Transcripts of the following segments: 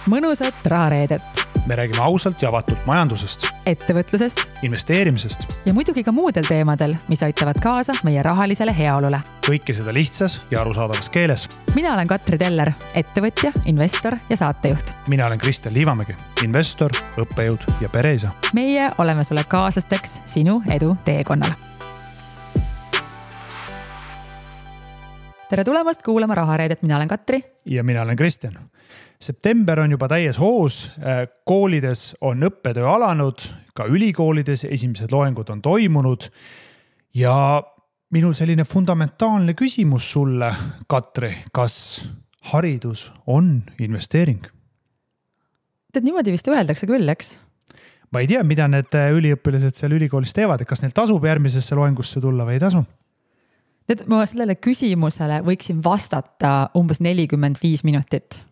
mõnusat rahareedet. Me räägime ausalt ja avatult majandusest, ettevõtlusest investeerimisest ja muidugi ka muudel teemadel, mis aitavad kaasa meie rahalisele heaolule. Kõike seda lihtsas ja arusaadavas keeles. Mina olen Katri Teller, ettevõtja, investor ja saatejuht. Mina olen Kristjan Liivamägi, investor, õppejõud ja pereisa. Meie oleme sulle kaaslasteks sinu edu teekonnal. Tere tulemast kuulama rahareedet, mina olen Katri. Ja mina olen Kristjan. September on juba täies hoos, koolides on õppetöö alanud, ka ülikoolides esimesed loengud on toimunud ja minul selline fundamentaalne küsimus sulle, Katri, kas haridus on investeering? Tead, niimoodi vist öeldakse küll, eks? Ma ei tea, mida need üliõpilased seal ülikoolis teevad, kas neil tasub järgmisesse loengusse tulla või ei tasu? Tead, ma sellele küsimusele võiksin vastata umbes 45 minutit.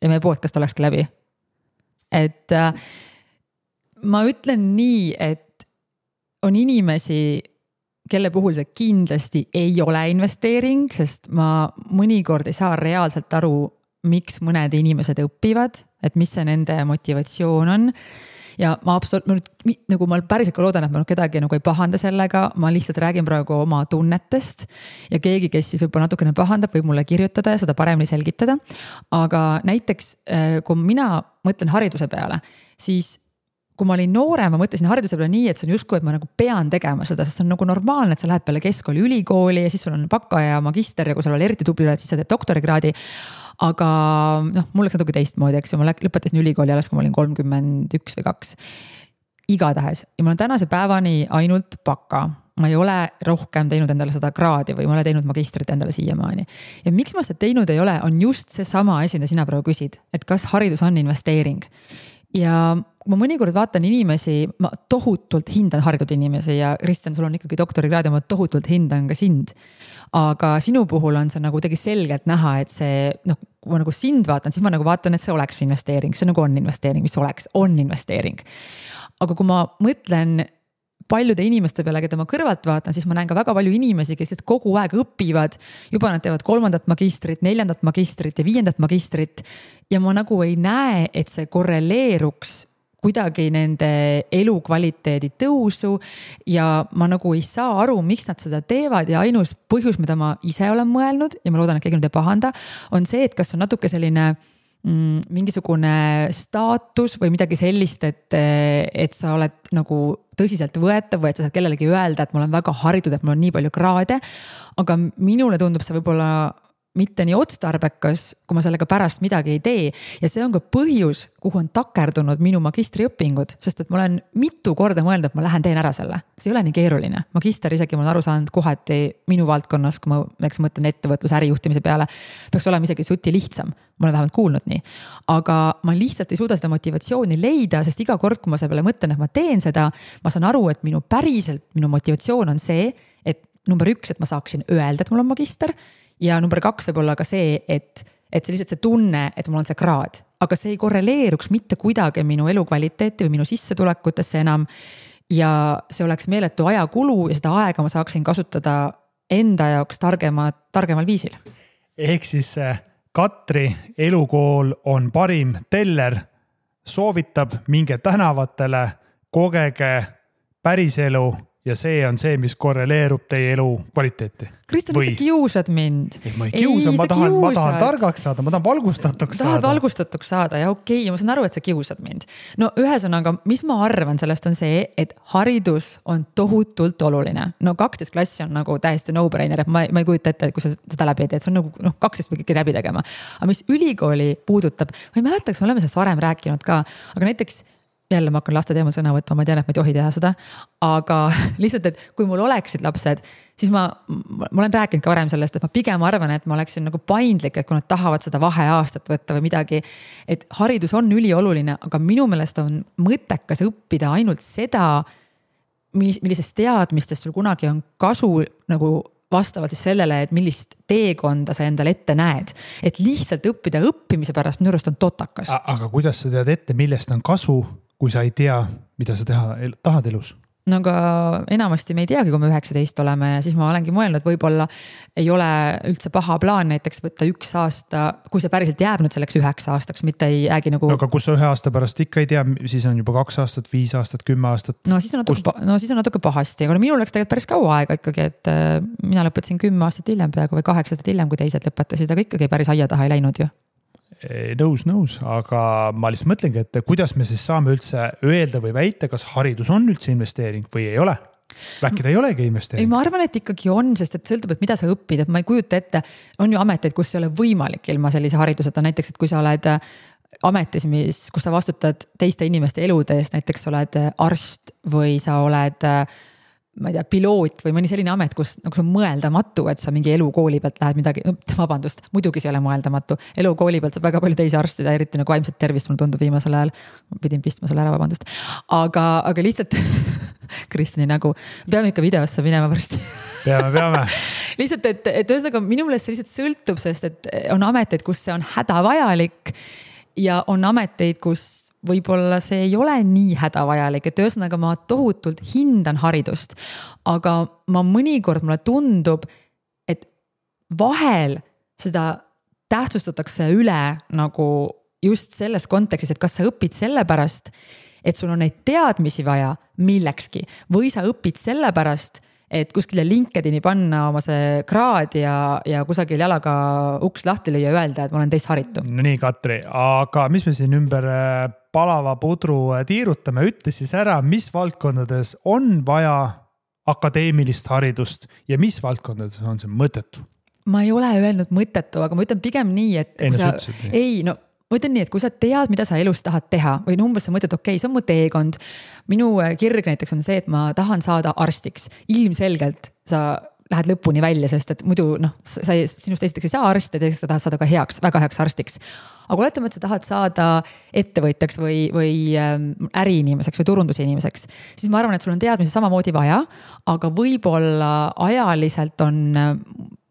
Ja meie podcast olekski läbi. Et ma ütlen nii, et on inimesi, kelle puhul see kindlasti ei ole investeering, sest ma mõnikord ei saa reaalselt aru, miks mõned inimesed õpivad, et mis see nende motivatsioon on. Ja ma päriselt loodan, et ma kedagi ei pahanda sellega, ma lihtsalt räägin praegu oma tunnetest ja keegi, kes siis võib-olla natukene pahandab, võib mulle kirjutada ja seda paremini selgitada. Aga näiteks, kui mina mõtlen hariduse peale, siis kui ma olin noorem, ma mõtlesin hariduse peale nii, et see on justkui, et ma pean tegema seda, sest see on normaalne, et sa lähed peale keskkooli ülikooli ja siis sul on baka ja magister ja kui sul on eriti tubli, siis sa teed doktorikraadi. Aga mul oleks natuke teistmoodi, eks ju, ma lõpetasin ülikooli alles, kui ma olin 31 või 2. Igatahes. Ja ma olen tänase päevani ainult baka. Ma ei ole rohkem teinud endale seda kraadi või ma olen teinud magistrit endale siiamaani. Ja miks ma seda teinud ei ole, on just see sama asi, mida sina praegu küsid, et kas haridus on investeering. Ja ma mõnikord vaatan inimesi, ma tohutult hindan haritud inimesi ja Kristjan, sul on ikkagi doktorikraad ja ma tohutult hindan ka sind. Aga sinu puhul on see tegi selgelt näha, et see, kui ma sind vaatan, siis ma vaatan, et see oleks investeering, see on investeering, mis on investeering. Aga kui ma mõtlen paljude inimeste peale, keda ma kõrvalt vaatan, siis ma näen ka väga palju inimesi, kes kogu aeg õpivad, juba nad teevad 3. magistrit, 4. magistrit ja 5. magistrit ja ma ei näe, et see korreleeruks kuidagi nende elukvaliteedi tõusu ja ma ei saa aru, miks nad seda teevad ja ainus põhjus, mida ma ise olen mõelnud ja ma loodan, et keegi nüüd ei pahanda, on see, et kas on natuke selline mingisugune staatus või midagi sellist, et sa oled tõsiselt võetav või et sa saad kellelegi öelda, et ma olen väga haritud, et mul on nii palju kraade, aga minule tundub see võib-olla mitte nii otstarbekas, kui ma sellega pärast midagi ei tee. Ja see on ka põhjus, kuhu on takerdunud minu magistriõpingud, sest et ma olen mitu korda mõelnud, et ma lähen teen ära selle. See ei ole nii keeruline. Magister isegi ma olen aru saanud kohati minu valdkonnas, kui ma mõtlen ettevõtluse ärijuhtimise peale, peaks olema isegi suti lihtsam. Ma olen vähemalt kuulnud nii. Aga ma lihtsalt ei suuda seda motivatsiooni leida, sest iga kord, kui ma selle peale mõtlen, et ma teen seda, ma saan aru, et minu motivatsioon on see, et number 1, et ma saaksin öelda, et mul on magister. Ja number 2 võib olla ka see, et see lihtsalt see tunne, et mul on see kraad. Aga see ei korreleeruks mitte kuidagi minu elukvaliteeti või minu sissetulekutesse enam. Ja see oleks meeletu ajakulu ja seda aega ma saaksin kasutada enda jaoks targemal viisil. Ehk siis Katri elukool on parim teller, soovitab minge tänavatele, kogege päriselu ja see on see, mis korreleerub teie elu kvaliteeti. Kristjan, sa kiusad mind. Ma ei kiusa, ma tahan targaks saada, ma tahan valgustatuks saada. Tahad valgustatuks saada ja okei, ma saan aru, et sa kiusad mind. No ühesõnaga, mis ma arvan sellest on see, et haridus on tohutult oluline. 12 klassi on täiesti no-brainer, et ma ei kujuta ette, kui sa seda läbi teed, see on 12 või kõik läbi tegema. Aga mis ülikooli puudutab, ma ei mäletaks, me oleme sellest varem rääkinud ka, aga näiteks jälle ma hakkan laste teemal sõna võtma, ma tean, et ma ei tohi teha seda, aga lihtsalt, et kui mul oleksid lapsed, siis ma olen rääkinud ka varem sellest, et ma pigem arvan, et ma oleksin paindlik, et kui nad tahavad seda vaheaastat võtta või midagi, et haridus on ülioluline, aga minu meelest on mõttekas õppida ainult seda, millisest teadmistest sul kunagi on kasu vastavalt siis sellele, et millist teekonda sa endale ette näed. Et lihtsalt õppida õppimise pärast minu arust on totakas. Aga kuidas sa tead ette, millest on kasu, kui sa ei tea, mida sa tahad elus? no aga enamasti me ei teagi, kui me 19 oleme ja siis ma olengi mõelnud, et võib-olla ei ole üldse paha plaan näiteks võtta 1 aasta, kui see päriselt jääb nüüd selleks 9 aastaks, mitte ei jäägi nagu. Aga kus sa 1 aasta pärast ikka ei tea, siis on juba 2 aastat, 5 aastat, 10 aastat. No siis on natuke pahasti, aga minul läks tegelikult päris kaua aega ikkagi, et mina lõpetasin 10 aastat hiljem peaaegu või 8 aastat hiljem, kui teised lõpetasid, aga ikkagi päris aia taha ei läinud ju. Nõus, aga ma lihtsalt mõtlengi, et kuidas me siis saame üldse öelda või väita, kas haridus on üldse investeering või ei ole? Äkki ta ei olegi investeering? Ei, ma arvan, et ikkagi on, sest et sõltub, et mida sa õpid, et ma ei kujuta ette, on ju ameteid, kus ei ole võimalik ilma sellise hariduseta, näiteks, et kui sa oled ametis, kus sa vastutad teiste inimeste elude eest, näiteks oled arst või sa oled ma ei tea, piloot või mõni selline amet, kus nagu see on mõeldamatu, et sa mingi elukooli pealt lähed midagi, vabandust, muidugi see ei ole mõeldamatu. Elukooli pealt saab väga palju teisi arstida, eriti nagu vaimset tervist, mulle tundub viimasel ajal. Ma pidin pistma selle ära, vabandust. Aga lihtsalt, Kristjani nagu, peame ikka videosse minema varsti. Peame. Lihtsalt, et ühesõnaga minu meelest see lihtsalt sõltub, sest et on ameteid, kus see on hädavajalik ja on ameteid, kus võib-olla see ei ole nii hädavajalik, et ühesõnaga ma tohutult hindan haridust, aga ma mõnikord mulle tundub, et vahel seda tähtsustatakse üle nagu just selles kontekstis, et kas sa õpid sellepärast, et sul on neid teadmisi vaja millekski või sa õpid sellepärast, et kuskile LinkedIni panna oma see kraad ja kusagil jalaga uks lahti lüüa ja öelda, et ma olen teist haritu. No nii, Katri, aga mis me siin ümber palava pudru tiirutame, ütle siis ära, mis valdkondades on vaja akadeemilist haridust ja mis valdkondades on see mõttetu? Ma ei ole öelnud mõttetu, aga ma ütlen pigem nii, et ma ütlen nii, et kui sa tead, mida sa elus tahad teha või umbes sa mõtled, okei, see on mu teekond. Minu kirg näiteks on see, et ma tahan saada arstiks. Ilmselgelt sa lähed lõpuni välja, sest et muidu sinust esiteks ei saa arst ja teiseks sa tahad saada ka väga heaks arstiks. Aga oletame, et sa tahad saada ettevõtjaks või äriinimeseks või turundusinimeseks, siis ma arvan, et sul on teadmisi samamoodi vaja, aga võib-olla ajaliselt on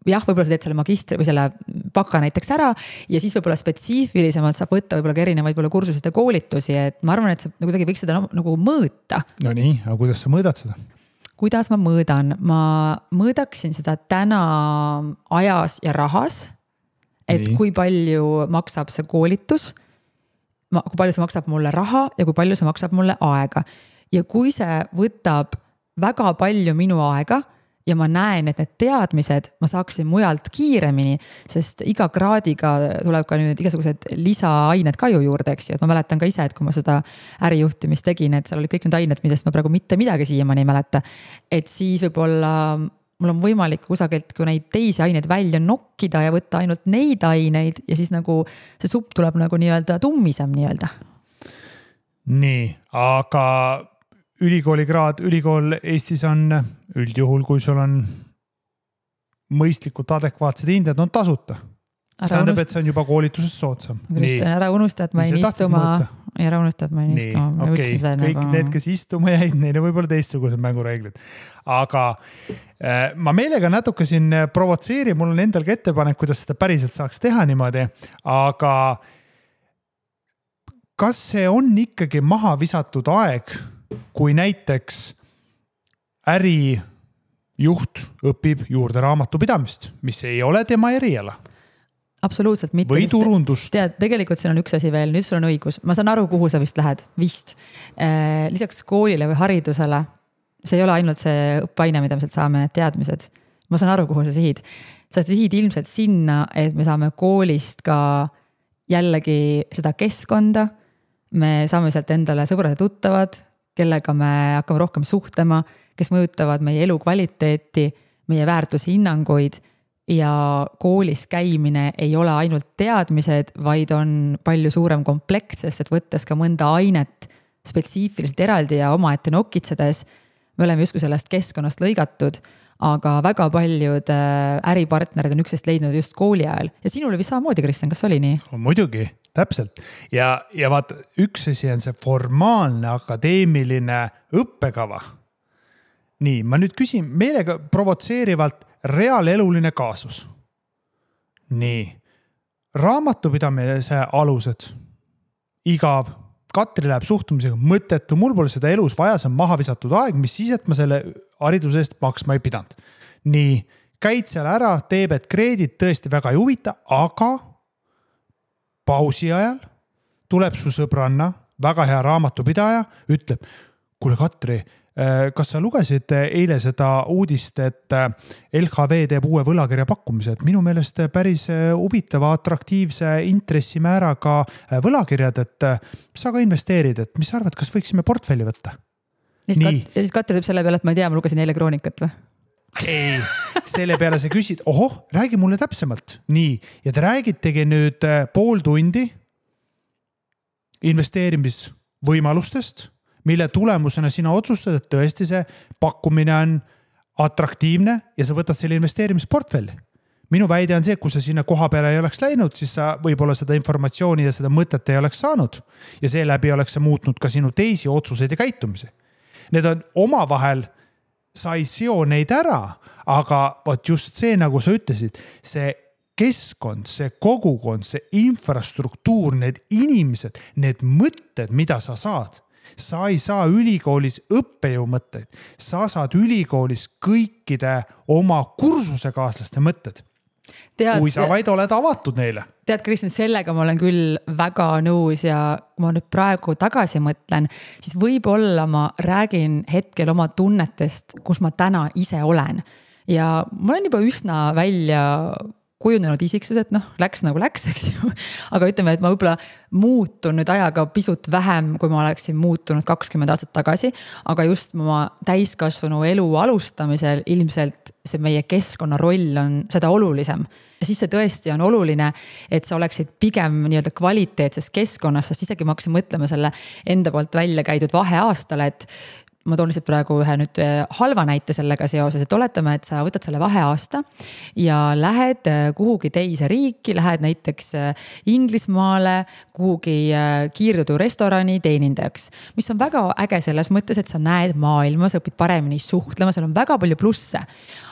võib-olla sa teed selle magistri või selle baka näiteks ära ja siis võib-olla spetsiifilisemalt saab võtta võib-olla ka erinevaid kursusid ja koolitusi, et ma arvan, et sa kuidagi võiks seda nagu mõõta. No nii, aga kuidas sa mõõdad seda? Kuidas ma mõõdan? Ma mõõdaksin seda täna ajas ja rahas, et kui palju maksab see koolitus, kui palju see maksab mulle raha ja kui palju see maksab mulle aega. Ja kui see võtab väga palju minu aega, ja ma näen, et need teadmised ma saaksin mujalt kiiremini, sest iga kraadiga tuleb ka nüüd igasugused lisaained ka ju juurde, eks ju. Et ma mäletan ka ise, et kui ma seda ärijuhtimist tegin, et seal oli kõik need ained, millest ma praegu mitte midagi siiamaani ei mäleta. Et siis võib-olla mul on võimalik kusagilt kui neid teisi aineid välja nokkida ja võtta ainult neid aineid ja siis nagu see supp tuleb nagu nii-öelda tummisem nii-öelda. Nii, aga ülikool Eestis on üldjuhul, kui sul on mõistlikult adekvaatsed hinded, on tasuta. Tähendab, et see on juba koolituses soodsam. Kristjan, ära unusta, et ma ei istuma. Ära unusta, et ma ei istuma. Okay. Kõik need, kes istuma jäid, neile võib-olla teistsugused mängureeglid. Aga ma meelega natuke siin provotseerin, mul on endalgi ettepanek, kuidas seda päriselt saaks teha niimoodi, aga kas see on ikkagi maha visatud aeg, kui näiteks ärijuht õpib juurde raamatupidamist, mis ei ole tema eriala? Absoluutselt mitte. Või turundust. Tead, tegelikult siin on üks asi veel, nüüd sul on õigus. Ma saan aru, kuhu sa vist lähed. Vist. Lisaks koolile või haridusele, see ei ole ainult see õppeaine, mida me sealt saame, need teadmised. Ma saan aru, kuhu sa sihid. Sa sihid ilmselt sinna, et me saame koolist ka jällegi seda keskkonda. Me saame sealt endale sõbrad ja tuttavad, kellega me hakkame rohkem suhtlema, kes mõjutavad meie elu kvaliteeti, meie väärtushinnanguid ja koolis käimine ei ole ainult teadmised, vaid on palju suurem komplekt, sest et võttes ka mõnda ainet spetsiifiliselt eraldi ja omaette nokitsedes, me oleme justkui sellest keskkonnast lõigatud, aga väga paljud äripartnerid on üksteist leidnud just kooli ajal. Ja sinul oli vist samamoodi, Kristjan, kas oli nii? Muidugi, täpselt. Ja vaata, üks asi on see formaalne akadeemiline õppekava. Nii, ma nüüd küsin meelega provotseerivalt reaaleluline kaasus. Nii, raamatupidamise alused, igav, Katri läheb suhtumisega mõttetu, mul pole seda elus vaja, see on maha visatud aeg, mis siis, et ma selle hariduse eest maksma ei pidanud. Nii, käid seal ära, teeb, et kreedit tõesti väga ei huvita, aga pausi ajal tuleb su sõbranna, väga hea raamatupidaja, ütleb, kuule Katri, kas sa lugesid eile seda uudist, et LHV teeb uue võlakirja pakkumise, et minu meelest päris huvitava, atraktiivse intressimääraga võlakirjad, et sa ka investeerid, et mis sa arvad, kas võiksime portfelli võtta? Ja siis Katri teeb selle peale, et ma ei tea, ma lugesin eile kroonikat või? Ei, selle peale sa küsid, räägi mulle täpsemalt. Nii, ja te räägitegi nüüd pool tundi investeerimisvõimalustest, mille tulemusena sina otsustad, et tõesti see pakkumine on atraktiivne ja sa võtad selle investeerimisportfelli. Minu väide on see, et kui sa sinna koha peale ei oleks läinud, siis sa võib-olla seda informatsiooni ja seda mõtet ei oleks saanud ja seeläbi oleks sa muutnud ka sinu teisi otsuseid ja käitumisi. Need on omavahel, sa ei seo neid ära, aga võt just see, nagu sa ütlesid, see keskkond, see kogukond, see infrastruktuur, need inimesed, need mõtted, mida sa saad. Sa ei saa ülikoolis õppejõu mõtteid, sa saad ülikoolis kõikide oma kursusekaaslaste mõtted. Kui sa vaid oled avatud neile. Tead, Kristjan, sellega ma olen küll väga nõus ja kui ma nüüd praegu tagasi mõtlen, siis võib-olla ma räägin hetkel oma tunnetest, kus ma täna ise olen. Ja ma olen juba üsna välja kujunenud isiksus, et läks nagu läks, eks ju. Aga ütleme, et ma võib-olla muutun nüüd ajaga pisut vähem, kui ma oleksin muutunud 20 aastat tagasi, aga just oma täiskasvanu elu alustamisel ilmselt see meie keskkonna roll on seda olulisem. Ja siis see tõesti on oluline, et sa oleksid pigem nii-öelda kvaliteetses keskkonnas, sest isegi ma hakkasin mõtlema selle enda poolt välja käidud vaheaastale, et ma toon lihtsalt praegu ühe nüüd halva näite sellega seoses, et oletame, et sa võtad selle vaheaasta ja lähed kuhugi teise riiki, lähed näiteks Inglismaale, kuhugi kiirtoidu restorani teenindajaks, mis on väga äge selles mõttes, et sa näed maailma, sa õpid paremini suhtlema, seal on väga palju plusse.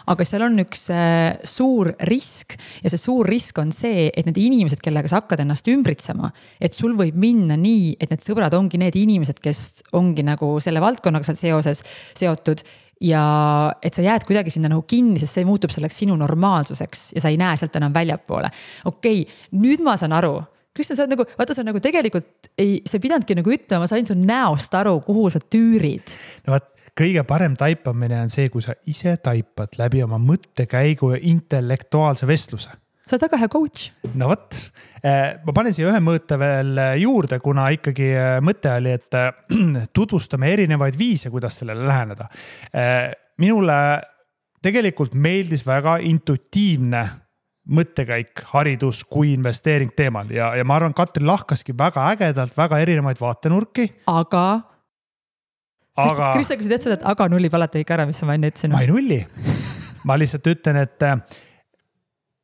Aga seal on üks suur risk ja see suur risk on see, et need inimesed, kellega sa hakkad ennast ümbritsema, et sul võib minna nii, et need sõbrad ongi need inimesed, kes ongi nagu selle valdkonnaga seal seoses seotud ja et sa jääd kuidagi sinna nagu kinni, sest see muutub selleks sinu normaalsuseks ja sa ei näe sealt enam väljapoole. Okei, nüüd ma saan aru. Kristjan, sa nagu, vaata, sa nagu tegelikult sa ei pidanudki nagu ütlema, ma sain su näost aru, kuhu sa tüürid. No vaat, kõige parem taipamine on see, kui sa ise taipad läbi oma mõttekäigu ja intellektuaalse vestluse. Sa oled väga hea coach. No võt, ma panen siia ühe mõõte veel juurde, kuna ikkagi mõte oli, et tutvustame erinevaid viise, kuidas sellele läheneda. Minule tegelikult meeldis väga intuitiivne mõttekäik, haridus kui investeering teemal ja ma arvan, Katri lahkaski väga ägedalt, väga erinevaid vaatenurki. Kristjan, kui sa tead seda, et aga nullib alati ikka ära, mis ma enne ütlesin? Ma ei nulli. Ma lihtsalt ütlen, et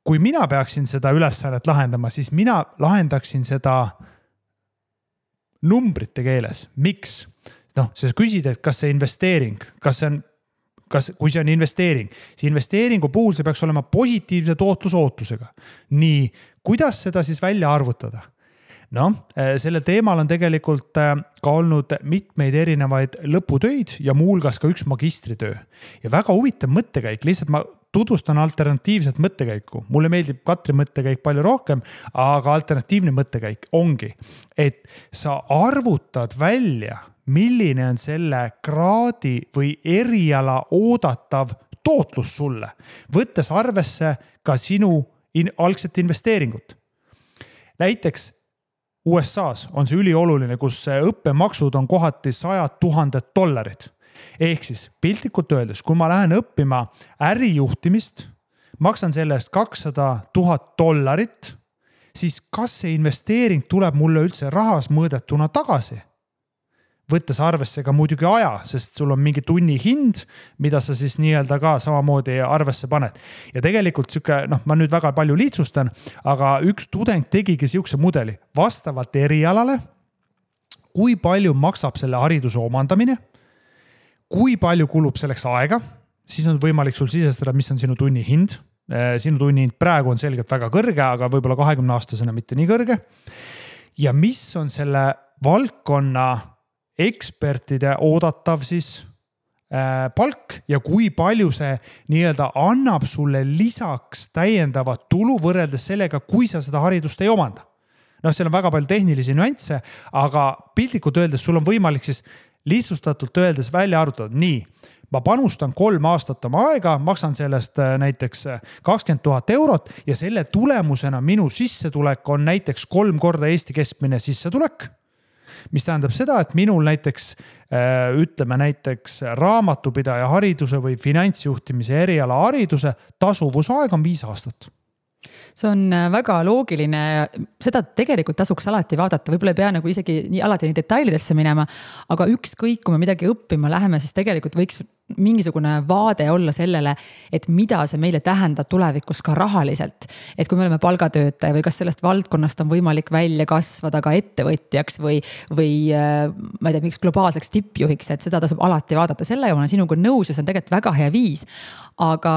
kui mina peaksin seda ülesannet lahendama, siis mina lahendaksin seda numbrite keeles. Miks? Sa küsid, et kas see investeering, kui see on investeering, siis investeeringu puhul see peaks olema positiivse tootlusootusega. Nii, kuidas seda siis välja arvutada? Selle teemal on tegelikult ka olnud mitmeid erinevaid lõputöid ja muulgas ka üks magistritöö. Ja väga huvitav mõttekäik, lihtsalt ma tutvustan alternatiivset mõttekäiku. Mulle meeldib Katri mõttekäik palju rohkem, aga alternatiivne mõttekäik ongi, et sa arvutad välja, milline on selle kraadi või eriala oodatav tootlus sulle, võttes arvesse ka sinu algset investeeringut. Näiteks USA-s on see ülioluline, kus õppemaksud on kohati $100,000. Ehk siis piltlikult öeldes, kui ma lähen õppima ärijuhtimist, maksan selle eest $200,000, siis kas see investeering tuleb mulle üldse rahas mõõdetuna tagasi? Võttes arvesse ka muidugi aja, sest sul on mingi tunni hind, mida sa siis nii-öelda ka samamoodi arvesse paned. Ja tegelikult ma nüüd väga palju lihtsustan, aga üks tudeng tegigi siukse mudeli vastavalt erialale, kui palju maksab selle hariduse omandamine, kui palju kulub selleks aega, siis on võimalik sul sisestada, mis on sinu tunni hind. Sinu tunni hind praegu on selgelt väga kõrge, aga võib-olla 20-aastasena mitte nii kõrge. Ja mis on selle valdkonna ekspertide oodatav siis palk ja kui palju see nii-öelda annab sulle lisaks täiendavat tulu võrreldes sellega, kui sa seda haridust ei omanda. Seal on väga palju tehnilisi nüansse, aga piltlikult öeldes sul on võimalik siis lihtsustatult öeldes välja arvutada. Nii, ma panustan 3 aastat oma aega, maksan sellest näiteks 20 000 eurot ja selle tulemusena minu sissetulek on näiteks 3 korda Eesti keskmine sissetulek, mis tähendab seda, et minul näiteks, ütleme näiteks raamatupidaja hariduse või finantsjuhtimise eriala hariduse tasuvusaeg on 5 aastat. See on väga loogiline, seda tegelikult tasuks alati vaadata, võib-olla ei pea nagu isegi alati nii detailidesse minema, aga ükskõik, kui me midagi õppima läheme, siis tegelikult võiks mingisugune vaade olla sellele, et mida see meile tähendab tulevikus ka rahaliselt. Et kui me oleme palgatöötaja või kas sellest valdkonnast on võimalik välja kasvada ka ettevõtjaks või ma ei tea, miks globaalseks tippjuhiks, et seda tasub alati vaadata. Selle ja ma olen sinuga nõus ja see on tegelikult väga hea viis, aga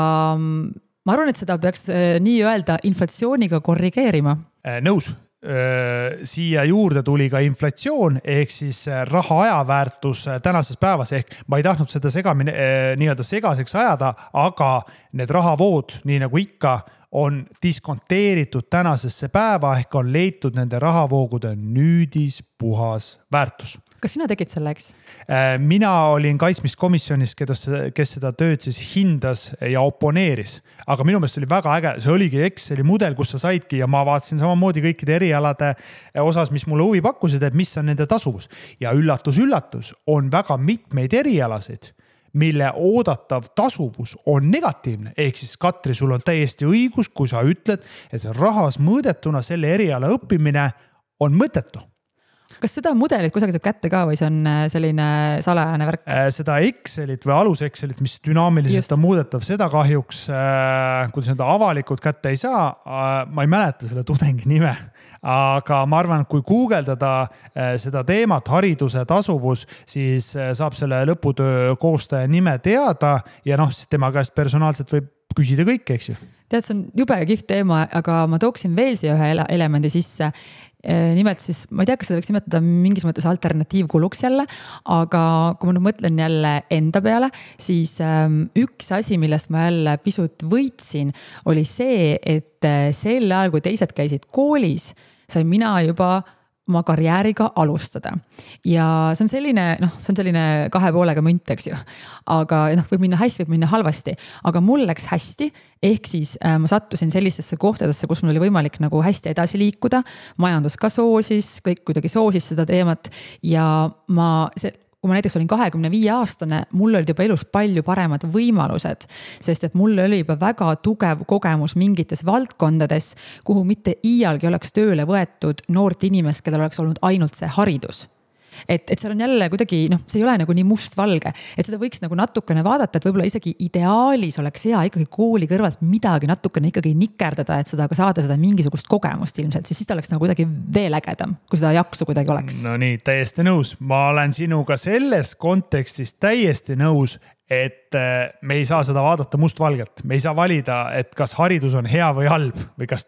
ma arvan, et seda peaks nii öelda inflatsiooniga korrigeerima. Nõus. Siia juurde tuli ka inflatsioon ehk siis raha ajaväärtus tänases päevas ehk ma ei tahtnud seda nii-öelda segaseks ajada, aga need rahavood, nii nagu ikka, on diskonteeritud tänasesse päeva ehk on leitud nende rahavoogude nüüdis puhas väärtus. Kas sina tegid selleks? Mina olin kaitsmiskomisjonis, kes seda tööd siis hindas ja oponeeris. Aga minu meelest oli väga äge, see oligi Exceli mudel, kus sa saidki ja ma vaatasin samamoodi kõikide erialade osas, mis mulle huvi pakkusid, et mis on nende tasuvus. Ja üllatus, on väga mitmeid erialasid, mille oodatav tasuvus on negatiivne. Ehk siis Katri, sul on täiesti õigus, kui sa ütled, et rahas mõõdetuna selle eriala õppimine on mõttetu. Kas seda mudelit kusagil saab kätte ka või see on selline salajane värk? Seda Excelit või alus Excelit, mis dünaamiliselt on muudetav, seda kahjuks, kuidas seda avalikult kätte ei saa, ma ei mäleta selle tudengi nime, aga ma arvan, kui guugeldada seda teemat, hariduse tasuvus, siis saab selle lõputöö koostaja nime teada ja siis tema käest personaalselt võib küsida kõik, eks ju. Tead, see on jube kihvt teema, aga ma tooksin veel siia ühe elemendi sisse. Nimelt siis, ma ei tea, kas seda võiks nimetada mingis mõttes alternatiivkuluks jälle, aga kui ma nüüd mõtlen jälle enda peale, siis üks asi, millest ma jälle pisut võitsin, oli see, et sel ajal, kui teised käisid koolis, sain mina juba oma karjääriga alustada. Ja see on selline 2 poolega münt, eks ju. Aga võib minna hästi, võib minna halvasti. Aga mul läks hästi, ehk siis ma sattusin sellistesse kohtadesse, kus mul oli võimalik nagu hästi edasi liikuda. Majandus ka soosis, kõik kuidagi soosis seda teemat. Ja kui ma näiteks olin 25-aastane, mul olid juba elus palju paremad võimalused, sest et mul oli juba väga tugev kogemus mingites valdkondades, kuhu mitte iialgi oleks tööle võetud noort inimest, kellel oleks olnud ainult see haridus. Et seal on jälle kuidagi, see ei ole nagu nii must-valge, et seda võiks nagu natukene vaadata, et võib-olla isegi ideaalis oleks hea ikkagi kooli kõrvalt midagi natukene ikkagi nikerdada, et seda ka saada seda mingisugust kogemust ilmselt, siis ta oleks nagu kuidagi veel ägedam, kui seda jaksu kuidagi oleks. No nii, täiesti nõus. Ma olen sinuga selles kontekstis täiesti nõus, et me ei saa seda vaadata mustvalgelt. Me ei saa valida, et kas haridus on hea või halb või kas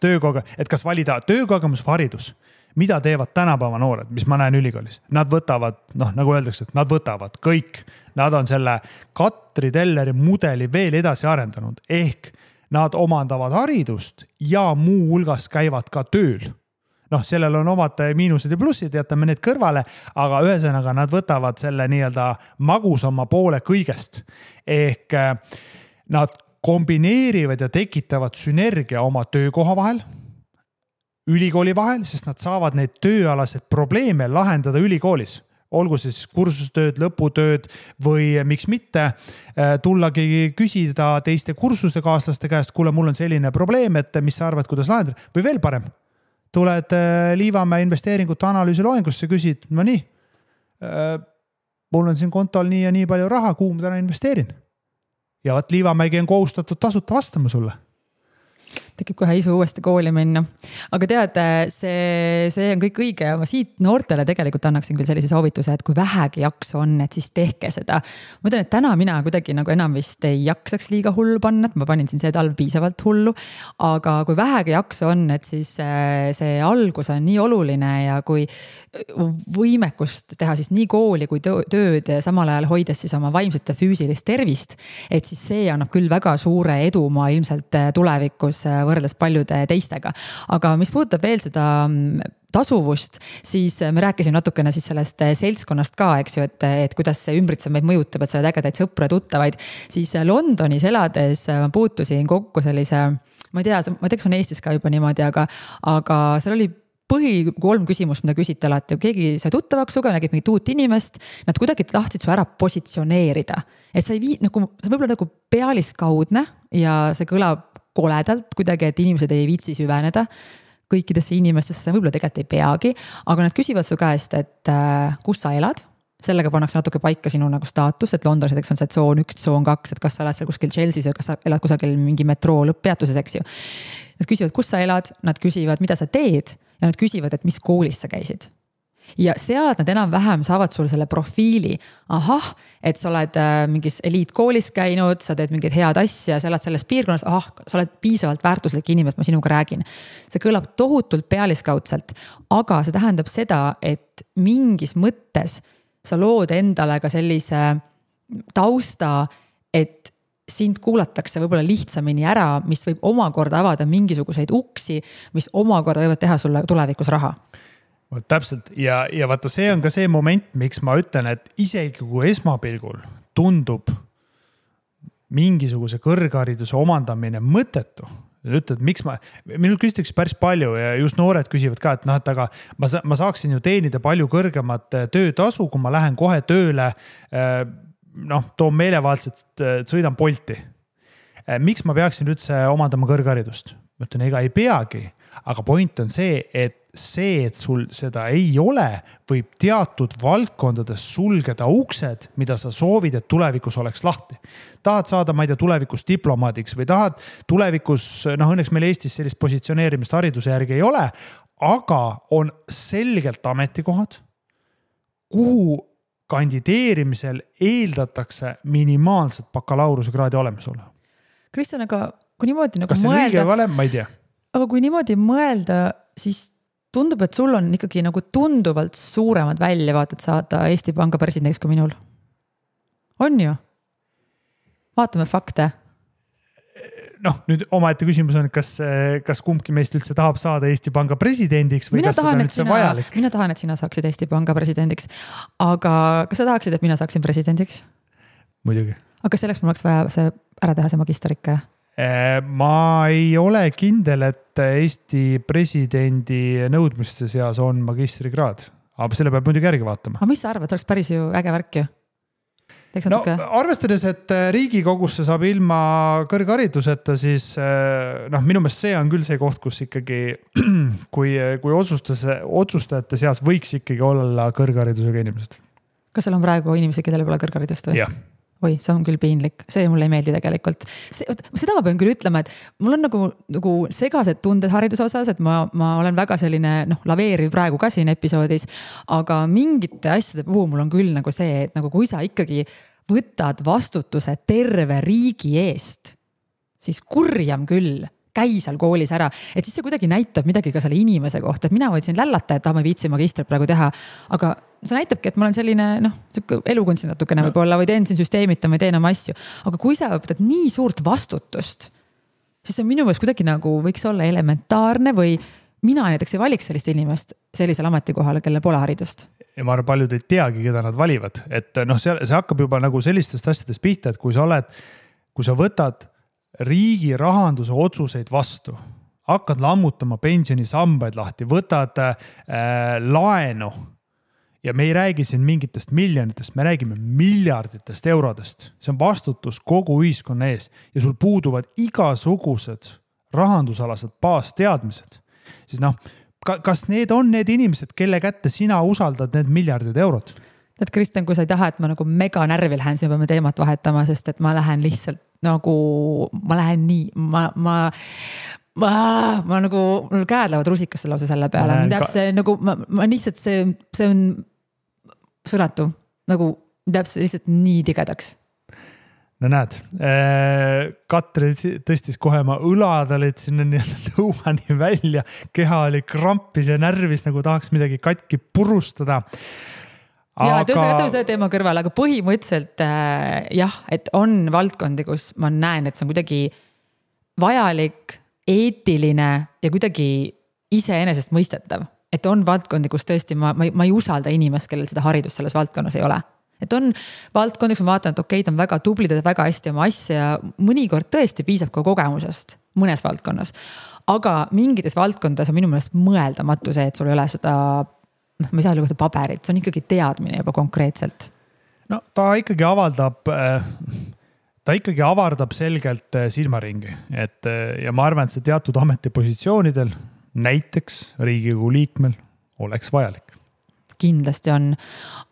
kas valida töökogemus või haridus. Mida teevad tänapäeva noored, mis ma näen ülikoolis? Nad võtavad, nagu öeldakse, et nad võtavad kõik. Nad on selle Katri Telleri mudeli veel edasi arendanud. Ehk nad omandavad haridust ja muu hulgas käivad ka tööl. Sellel on omad miinused ja plussid, jätame need kõrvale, aga ühesõnaga nad võtavad selle nii-öelda magusama poole kõigest. Ehk nad kombineerivad ja tekitavad sünergia oma töökoha vahel, ülikooli vahel, sest nad saavad neid tööalased probleeme lahendada ülikoolis. Olgu siis kursustööd, lõputööd või miks mitte tullagi küsida teiste kursuste kaaslaste käest, kuule, mul on selline probleem, et mis sa arvad, kuidas lahendada? Või veel parem, tuled Liivamäe investeeringute analüüsi loengusse, küsid, no nii, mul on siin kontol nii ja nii palju raha, kuhu ma täna investeerin. Ja Liivamäegi on kohustatud tasuta vastama sulle. tekib kohe isu uuesti kooli minna. Aga tead, see on kõik õige ja ma siit noortele tegelikult annaksin küll sellise soovituse, et kui vähegi jaksu on, et siis tehke seda. Ma ütlen, et täna mina kuidagi nagu enam vist ei jaksaks liiga hullu panna, et ma panin siin see talv piisavalt hullu. Aga kui vähegi jaksu on, et siis see algus on nii oluline ja kui võimekust teha siis nii kooli kui tööd ja samal ajal hoides siis oma vaimset ja füüsilist tervist, et siis see annab küll väga suure edumaa ilmselt tulevikus võrreldes paljude teistega. Aga mis puudutab veel seda tasuvust, siis me rääkisime natukene siis sellest seltskonnast ka, eks ju, et kuidas see ümbritsev meid mõjutab, et sa oled ägedaid sõpru ja tuttavaid. Siis Londonis elades ma puutusin kokku sellise, ma ei tea, kas on Eestis ka juba niimoodi, aga seal oli 3 küsimust, mida küsiti alati. Keegi sai tuttavaks suga, nägib mingit uut inimest, nad kuidagi tahtsid su ära positsioneerida. Et sa ei see võib-olla nagu pealiskaudne ja see kõlab koledalt kuidagi, et inimesed ei viitsi süveneda kõikidesse inimestesse, võib-olla tegelikult ei peagi, aga nad küsivad su käest, et kus sa elad. Sellega pannakse natuke paika sinu nagu staatus, et Londonis on see tsoon 1, tsoon 2, et kas sa elad seal kuskil Chelsea's või kas sa elad kusagil mingi metroo lõpppeatuses, eks ju. Nad küsivad, kus sa elad, nad küsivad, mida sa teed ja nad küsivad, et mis koolis sa käisid. Ja sealt nad enam-vähem saavad sul selle profiili, et sa oled mingis eliitkoolis käinud, sa teed mingid head asja, sa elad selles piirkonnas, sa oled piisavalt väärtuslik inimene, et ma sinuga räägin. See kõlab tohutult pealiskaudselt, aga see tähendab seda, et mingis mõttes sa lood endale ka sellise tausta, et sind kuulatakse võib-olla lihtsamini ära, mis võib omakorda avada mingisuguseid uksi, mis omakorda võivad teha sulle tulevikus raha. Täpselt ja vaata, see on ka see moment, miks ma ütlen, et isegi kui esmapilgul tundub mingisuguse kõrghariduse omandamine mõttetu, ütled, miks minul küsitakse päris palju ja just noored küsivad ka, et et aga ma saaksin ju teenida palju kõrgemat töötasu, kui ma lähen kohe tööle, toon meelevaldselt, sõidan Bolti. Miks ma peaksin üldse omandama kõrgharidust? Ma ütlen, ega ei peagi, aga point on see, et sul seda ei ole, võib teatud valdkondades sulgeda uksed, mida sa soovid, et tulevikus oleks lahti. Tahad saada, ma ei tea, tulevikus diplomaadiks või tahad tulevikus, õnneks meil Eestis sellist positsioneerimist hariduse järgi ei ole, aga on selgelt ametikohad, kuhu kandideerimisel eeldatakse minimaalset bakalaureuse kraadi olemasolu. Kristjan, aga kui niimoodi nagu kas see on õige või vale, ma ei tea. Aga kui niimoodi mõelda, siis tundub, et sul on ikkagi nagu tunduvalt suuremad väljavaated saada Eesti Panga presidendiks kui minul. On ju? Vaatame fakte. Nüüd omaette küsimus on, kas kumbki meist üldse tahab saada Eesti Panga presidendiks või kas seda on üldse vajalik? Mina tahan, et sina saaksid Eesti Panga presidendiks. Aga kas sa tahaksid, et mina saaksin presidendiks? Muidugi. Aga selleks mul oleks vaja see ära teha see magisterikka? Ma ei ole kindel, et Eesti presidendi nõudmiste seas on magistrikraad, aga selle peab muidugi järgi vaatama. Aga mis sa arvad, oleks päris ju äge värk ju? Arvestades, et Riigikogusse saab ilma kõrghariduseta, siis minu meelest see on küll see koht, kus ikkagi kui otsustajate seas võiks ikkagi olla kõrgharidusega inimesed. Kas seal on praegu inimesi, kellel pole kõrgharidust või? Jah. Oi, see on küll piinlik, see mulle ei meeldi tegelikult. Seda ma pean küll ütlema, et mul on nagu segased tunded hariduse osas, et ma olen väga selline laveeriv praegu ka siin episoodis, aga mingite asjade puhul mul on küll nagu see, et nagu kui sa ikkagi võtad vastutuse terve riigi eest, siis kurjam küll, käi seal koolis ära, et siis see kuidagi näitab midagi ka selle inimese kohta, et mina võtsin lällata, et ma ei viitsi magistrit praegu teha, aga see näitabki, et ma olen selline elukunst natukene võib-olla või teen siin süsteemita, ma teen oma asju, aga kui sa võtad nii suurt vastutust, siis see minu meelest kuidagi nagu võiks olla elementaarne või mina näiteks ei valiks sellist inimest sellisel ametikohale, kelle pole haridust. Ja ma arvan, paljud ei teagi, keda nad valivad, et see hakkab juba nagu sellistest asjadest pihta, et kui sa võtad riigi rahanduse otsuseid vastu, hakkad lammutama pensionisambaid lahti, võtad laenu ja me ei räägi siin mingitest miljonitest, me räägime miljarditest eurodest. See on vastutus kogu ühiskonna ees ja sul puuduvad igasugused rahandusalased baasteadmised. Siis kas need on need inimesed, kelle kätte sina usaldad need miljardid eurod? Et Kristjan, kui sa ei taha, et ma nagu mega närvil lähen, siis me peame teemat vahetama, sest et ma lähen lihtsalt ma lähen nii, ma nagu, mul käed lähevad rusikasse lausa selle peale, see nagu, ma lihtsalt see on sõnatu, nagu täpselt lihtsalt nii tigedaks. No näed, Katri tõstis kohe ma õlad olid sinna lõuani välja, keha oli krampis ja närvis, nagu tahaks midagi katki purustada. Ja tõstame selle teema kõrval, aga põhimõtteliselt jah, et on valdkondi, kus ma näen, et see on kuidagi vajalik, eetiline ja kuidagi iseenesest mõistetav. Et on valdkondi, kus tõesti ma ei usalda inimest, kellel seda haridust selles valdkonnas ei ole. Et on valdkondi, kus ma vaatan, et okei, ta on väga tublid, väga hästi oma asja ja mõnikord tõesti piisab ka kogemusest mõnes valdkonnas. Aga mingites valdkondades on minu meelest mõeldamatu see, et sul ei ole seda, ma ei saa lugeda paberit, see on ikkagi teadmine juba konkreetselt. No ta ikkagi avardab selgelt silmaringi, ja ma arvan, et see teatud ametipositsioonidel, näiteks Riigikogu liikmel, oleks vajalik. Kindlasti on.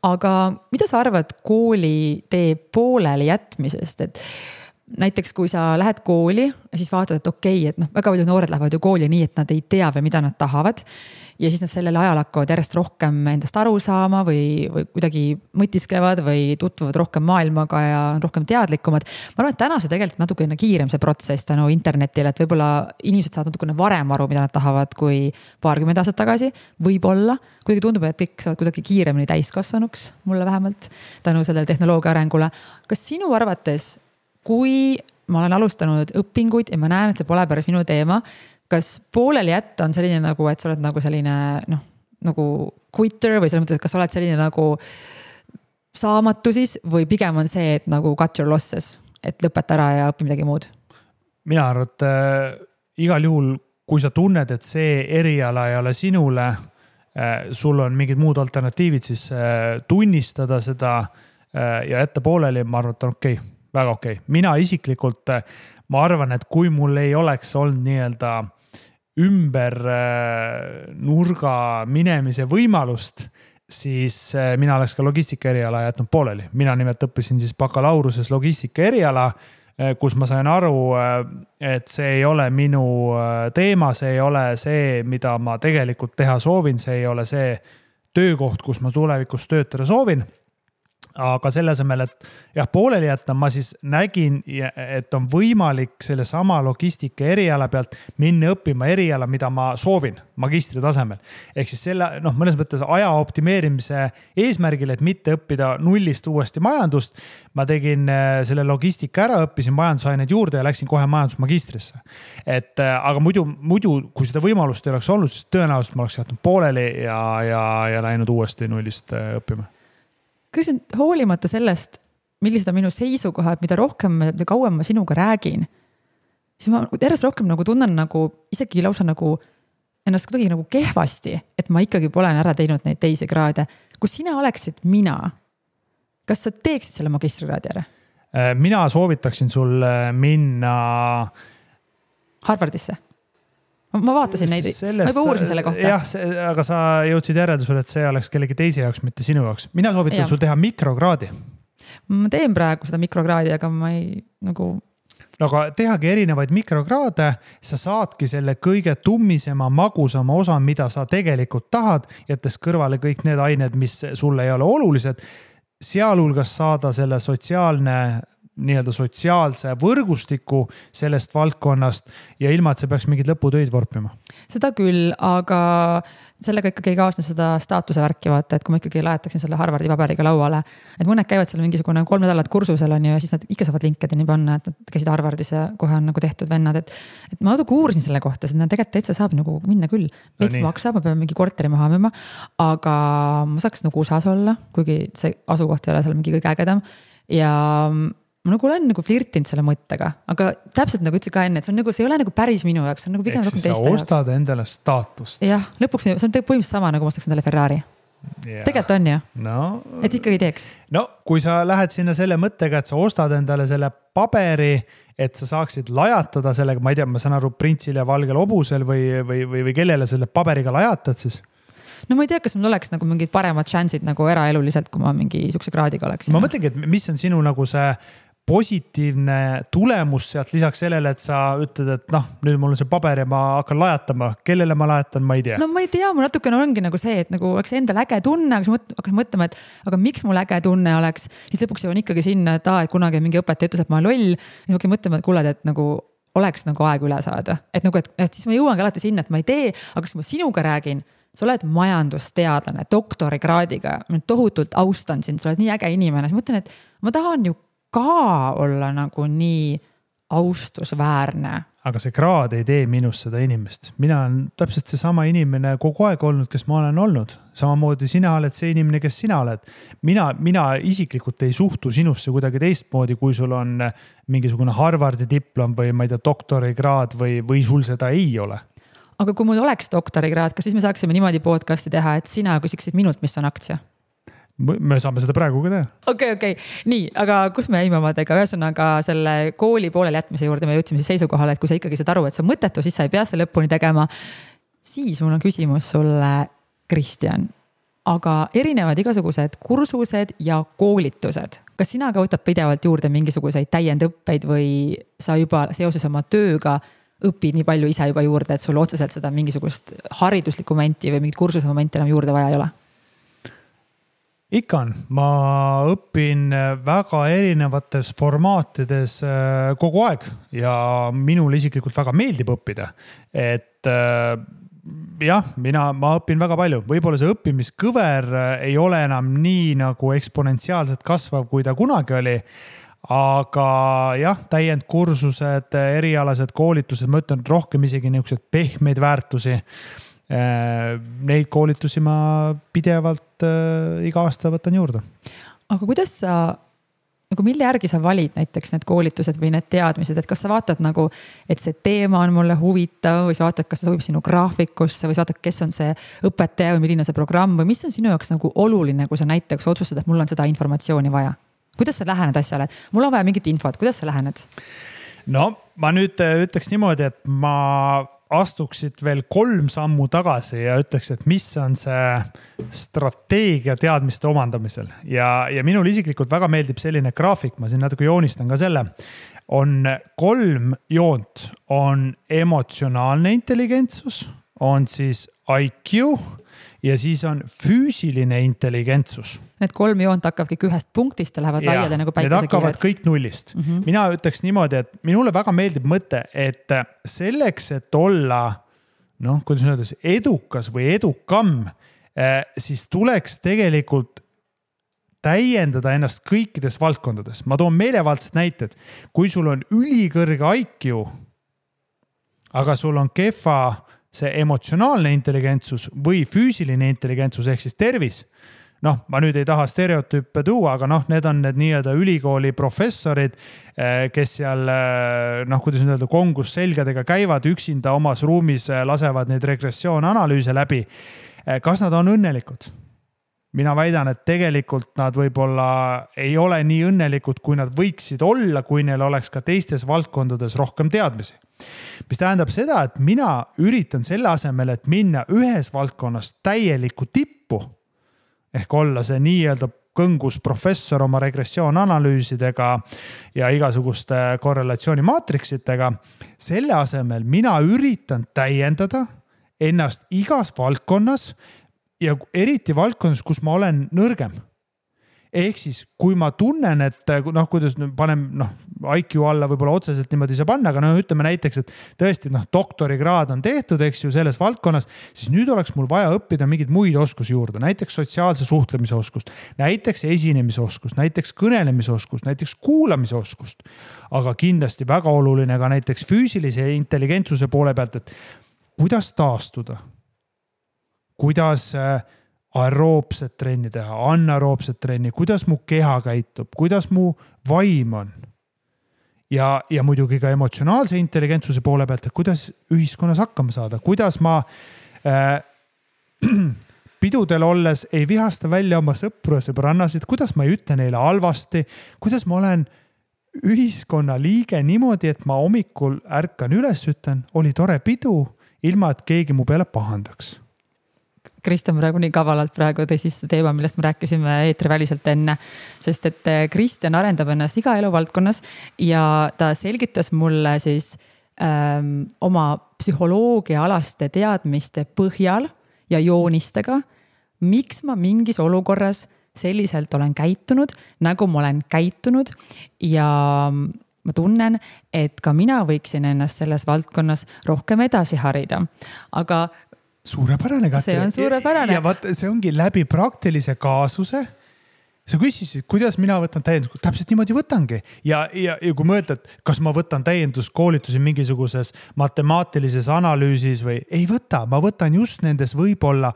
Aga mida sa arvad kooli tee pooleli jätmisest? Et näiteks kui sa lähed kooli ja siis vaatad, et okei, et väga palju noored lähevad ju kooli nii, et nad ei tea või mida nad tahavad. Ja siis nad sellel ajal hakkavad järjest rohkem endast aru saama või kuidagi mõtisklevad või tutvuvad rohkem maailmaga ja rohkem teadlikumad. Ma arvan, et täna see tegelikult natukene kiirem see protsess tänu internetile, et võib-olla inimesed saavad natukene varem aru, mida nad tahavad kui paarkümmend aastat tagasi. Võib-olla, kuidagi tundub, et kõik saavad kuidagi kiiremini täiskasvanuks, mulle vähemalt, tänu sellele tehnoloogia arengule. Kas sinu arvates, kui ma olen alustanud õpinguid ja ma näen, et see pole päris minu teema, kas pooleli jätta on selline nagu, et sa oled nagu selline nagu quitter või selles mõttes, et kas sa oled selline nagu saamatu siis või pigem on see, et nagu cut your losses, et lõpeta ära ja õpi midagi muud? Mina arvan, et igal juhul, kui sa tunned, et see eriala ei ole sinule, sul on mingid muud alternatiivid, siis tunnistada seda ja jätta pooleli, ma arvan, et on okei, väga okei. Mina isiklikult, ma arvan, et kui mul ei oleks olnud nii-öelda ümber nurga minemise võimalust, siis mina oleks ka logistika eriala jätnud pooleli. Mina nimelt õppisin siis bakalauruses logistika eriala, kus ma sain aru, et see ei ole minu teema, see ei ole see, mida ma tegelikult teha soovin, see ei ole see töökoht, kus ma tulevikus töötada soovin. Aga selle asemel, et jah, pooleli jätta, ma siis nägin, et on võimalik selle sama logistika eriala pealt minna õppima eriala, mida ma soovin magistri tasemel. Ehk siis selle, mõnes mõttes aja optimeerimise eesmärgil, et mitte õppida nullist uuesti majandust. Ma tegin selle logistika ära, õppisin majandusaineid juurde ja läksin kohe majandusmagistrisse. Aga muidu, kui seda võimalust ei oleks olnud, siis tõenäoliselt ma oleks jätnud pooleli ja läinud uuesti nullist õppima. Kõigepealt hoolimata sellest, millised on minu seisukohad, mida rohkem, mida kauem ma sinuga räägin, siis ma järjest rohkem nagu tunnen nagu isegi lausa nagu ennast kuidagi nagu kehvasti, et ma ikkagi pole ära teinud neid teisi kraade. Kui sina oleksid mina, kas sa teeksid selle magistrikraadi ära? Mina soovitaksin sul minna Harvardisse. Ma vaatasin neid, ma juba uurisin selle kohta. Jah, aga sa jõudsid järeldusele, et see oleks kellegi teise jaoks, mitte sinu jaoks. Mina soovitan sul teha mikrokraadi. Ma teen praegu seda mikrokraadi, aga ma ei nagu... Aga tehagi erinevaid mikrokraade, sa saadki selle kõige tummisema, magusama osa, mida sa tegelikult tahad, jättes kõrvale kõik need ained, mis sulle ei ole olulised. Sealhulgas saada selle sotsiaalse võrgustiku sellest valdkonnast ja ilma, et see peaks mingid lõputöid vorpima. Seda küll, aga sellega ikkagi ei kaasne seda staatuse värki vaata, et kui ma ikkagi laetaksin selle Harvardi paberiga lauale, et mõned käivad seal mingisugune 3 nädalat kursusel on ja siis nad ikka saavad LinkedIni panna, et nad käisid Harvardis ja kohe on nagu tehtud vennad, et ma natuke uurisin selle kohta, sest tegelikult täitsa saab nagu minna küll. Veits maksab, ma pean mingi korteri maha müüma, aga ma saaks nagu USA-s olla, kuigi see asukoht ei ole seal mingi kõige ägedam ja ma nagu olen nagu flirtinud selle mõttega, aga täpselt nagu ütlesin ka enne, et see ei ole nagu päris minu jaoks, see on nagu pigem rohkem teiste jaoks. Sa ostad endale staatust. Jah, lõpuks see on põhimõtteliselt sama, nagu ma ostaks endale Ferrari. Tegelikult on ju, et ikkagi teeks. No, kui sa lähed sinna selle mõttega, et sa ostad endale selle paberi, et sa saaksid lajatada sellega, ma ei tea, ma saan aru printsil ja valgel hobusel või kellele selle paberiga lajatad siis? No ma ei tea, kas mul oleks nagu mingid paremad šansid nagu eraeluliselt, kui ma mingi sukse kraadiga oleksin. Ma mõtlengi, et mis on sinu nagu see positiivne tulemus sealt lisaks sellele, et sa ütled, et nüüd mul on see paber ja ma hakkan lajatama. Kellele ma lajatan, ma ei tea. No ma ei tea, mul natukene ongi nagu see, et nagu oleks endal äge tunne, aga siis hakkas mõtlema, et aga miks mul äge tunne oleks, siis lõpuks jõuan ikkagi sinna, et et kunagi mingi õpetaja ütles, et ma olen loll. Ja ma hakkan mõtlema, et kuule, et nagu oleks nagu aeg üle saada. Et nagu, et siis ma jõuangi alati sinna, et ma ei tee, aga kui ma sinuga räägin, sa oled majandusteadlane, doktorikraadiga, ma tohutult austan sind, sa oled nii äge inimene. Siis mõtlen, et ma tahan ju ka olla nagu nii austusväärne. Aga see kraad ei tee minust seda inimest. Mina olen täpselt see sama inimene kogu aeg olnud, kes ma olen olnud. Samamoodi sina oled see inimene, kes sina oled. Mina isiklikult ei suhtu sinusse kuidagi teistmoodi, kui sul on mingisugune Harvardi diplom või ma ei tea, doktorikraad või sul seda ei ole. Aga kui mul oleks doktorikraad, kas siis me saaksime niimoodi podcasti teha, et sina küsiksid minult, mis on aktsia? Me saame seda praegu ka teha. Okei. Nii, aga kus me jäime omadega? Ühesõnaga selle kooli pooleli jätmise juurde me jõudsime siis seisukohale, et kui sa ikkagi saad aru, et see on mõttetu, siis sa ei pea seda lõpuni tegema. Siis mul on küsimus sulle, Kristjan. Aga erinevad igasugused kursused ja koolitused. Kas sina ka võtad pidevalt juurde mingisuguseid täiendõppeid või sa juba seoses oma tööga õpid nii palju ise juba juurde, et sul otseselt seda mingisugust hariduslikku momenti või mingit kursuse momenti enam juurde vaja ei ole? Ikka on. Ma õpin väga erinevates formaatides kogu aeg ja minul isiklikult väga meeldib õppida. Et ma õpin väga palju. Võib-olla see õppimiskõver ei ole enam nii nagu eksponentsiaalselt kasvav, kui ta kunagi oli. Aga täiendkursused, erialased koolitused, ma ütlen rohkem isegi niisugused pehmeid väärtusi. Neid koolitusi ma pidevalt iga aasta võtan juurde. Aga kuidas sa, nagu mille järgi sa valid näiteks need koolitused või need teadmised, et kas sa vaatad nagu, et see teema on mulle huvitav või sa vaatad, kas see sobib sinu graafikusse või sa vaatad, kes on see õpetaja või milline see programm või mis on sinu jaoks nagu oluline, kui sa näiteks otsustad, et mul on seda informatsiooni vaja? Kuidas sa lähened asjale? Mul on vaja mingit infot, kuidas sa lähened? No ma nüüd ütleks niimoodi, et ma astuksid veel 3 sammu tagasi ja ütleks, et mis on see strateegia teadmiste omandamisel. Ja minul isiklikult väga meeldib selline graafik, ma siin natuke joonistan ka selle. On 3 joont, on emotsionaalne intelligentsus, on siis IQ ja siis on füüsiline intelligentsus. Need 3 joont hakkavad kõik ühest punktist ja lähevad laiada nagu päikesekiired. Need hakkavad kõik nullist. Mina ütleks niimoodi, et minule väga meeldib mõte, et selleks, et olla, kuidas öeldes, edukas või edukam, siis tuleks tegelikult täiendada ennast kõikides valdkondades. Ma toon meelevaldsed näited. Kui sul on ülikõrge IQ, aga sul on kehva see emotsionaalne intelligentsus või füüsiline intelligentsus ehk siis tervis. Ma nüüd ei taha stereotüüpe tuua, aga need on need nii-öelda ülikooli professorid, kes seal, kuidas nüüd öelda, kongus selgadega käivad üksinda omas ruumis, lasevad neid regressioonanalüüse läbi. Kas nad on õnnelikud? Mina väidan, et tegelikult nad võib-olla ei ole nii õnnelikud, kui nad võiksid olla, kui neil oleks ka teistes valdkondades rohkem teadmisi. Mis tähendab seda, et mina üritan selle asemel, et minna ühes valdkonnas täielikku tippu, ehk olla see nii-öelda kõngus professor oma regressioonanalüüsidega ja igasuguste korrelatsioonimaatriksitega. Selle asemel mina üritan täiendada ennast igas valdkonnas ja eriti valdkonnas, kus ma olen nõrgem. Ehk siis, kui ma tunnen, et kuidas panem IQ alla võib-olla otseselt niimoodi ei saa panna, aga ütleme näiteks, et tõesti doktorikraad on tehtud, eks ju, selles valdkonnas, siis nüüd oleks mul vaja õppida mingeid muid oskusi juurde, näiteks sotsiaalse suhtlemise oskust, näiteks esinemise oskust, näiteks kõnelemise oskust, näiteks kuulamise oskust, aga kindlasti väga oluline ka näiteks füüsilise intelligentsuse poole pealt, et kuidas taastuda, kuidas aeroobset trenni teha, anaeroobset trenni, kuidas mu keha käitub, kuidas mu vaim on. Ja muidugi ka emotsionaalse intelligentsuse poole pealt, et kuidas ühiskonnas hakkama saada, kuidas ma pidudel olles ei vihasta välja oma sõpru ja sõbrannasid, kuidas ma ei ütle neile halvasti, kuidas ma olen ühiskonna liige niimoodi, et ma hommikul ärkan üles ütlen, oli tore pidu, ilma et keegi mu peale pahandaks. Kristjan praegu nii kavalalt praegu tõi siis teema, millest me rääkisime eetriväliselt enne, sest et Kristjan arendab ennast iga eluvaldkonnas ja ta selgitas mulle siis oma psühholoogiaalaste teadmiste põhjal ja joonistega, miks ma mingis olukorras selliselt olen käitunud, nagu ma olen käitunud ja ma tunnen, et ka mina võiksin ennast selles valdkonnas rohkem edasi harida, aga suurepärane, Katri. See on suurepärane. Ja vaat, see ongi läbi praktilise kaasuse. Sa küsisid, kuidas mina võtan täiendus, täpselt niimoodi võtangi. Ja kui mõtled, kas ma võtan täienduskoolitusi mingisuguses matemaatilises analüüsis või ei võta, ma võtan just nendes võib-olla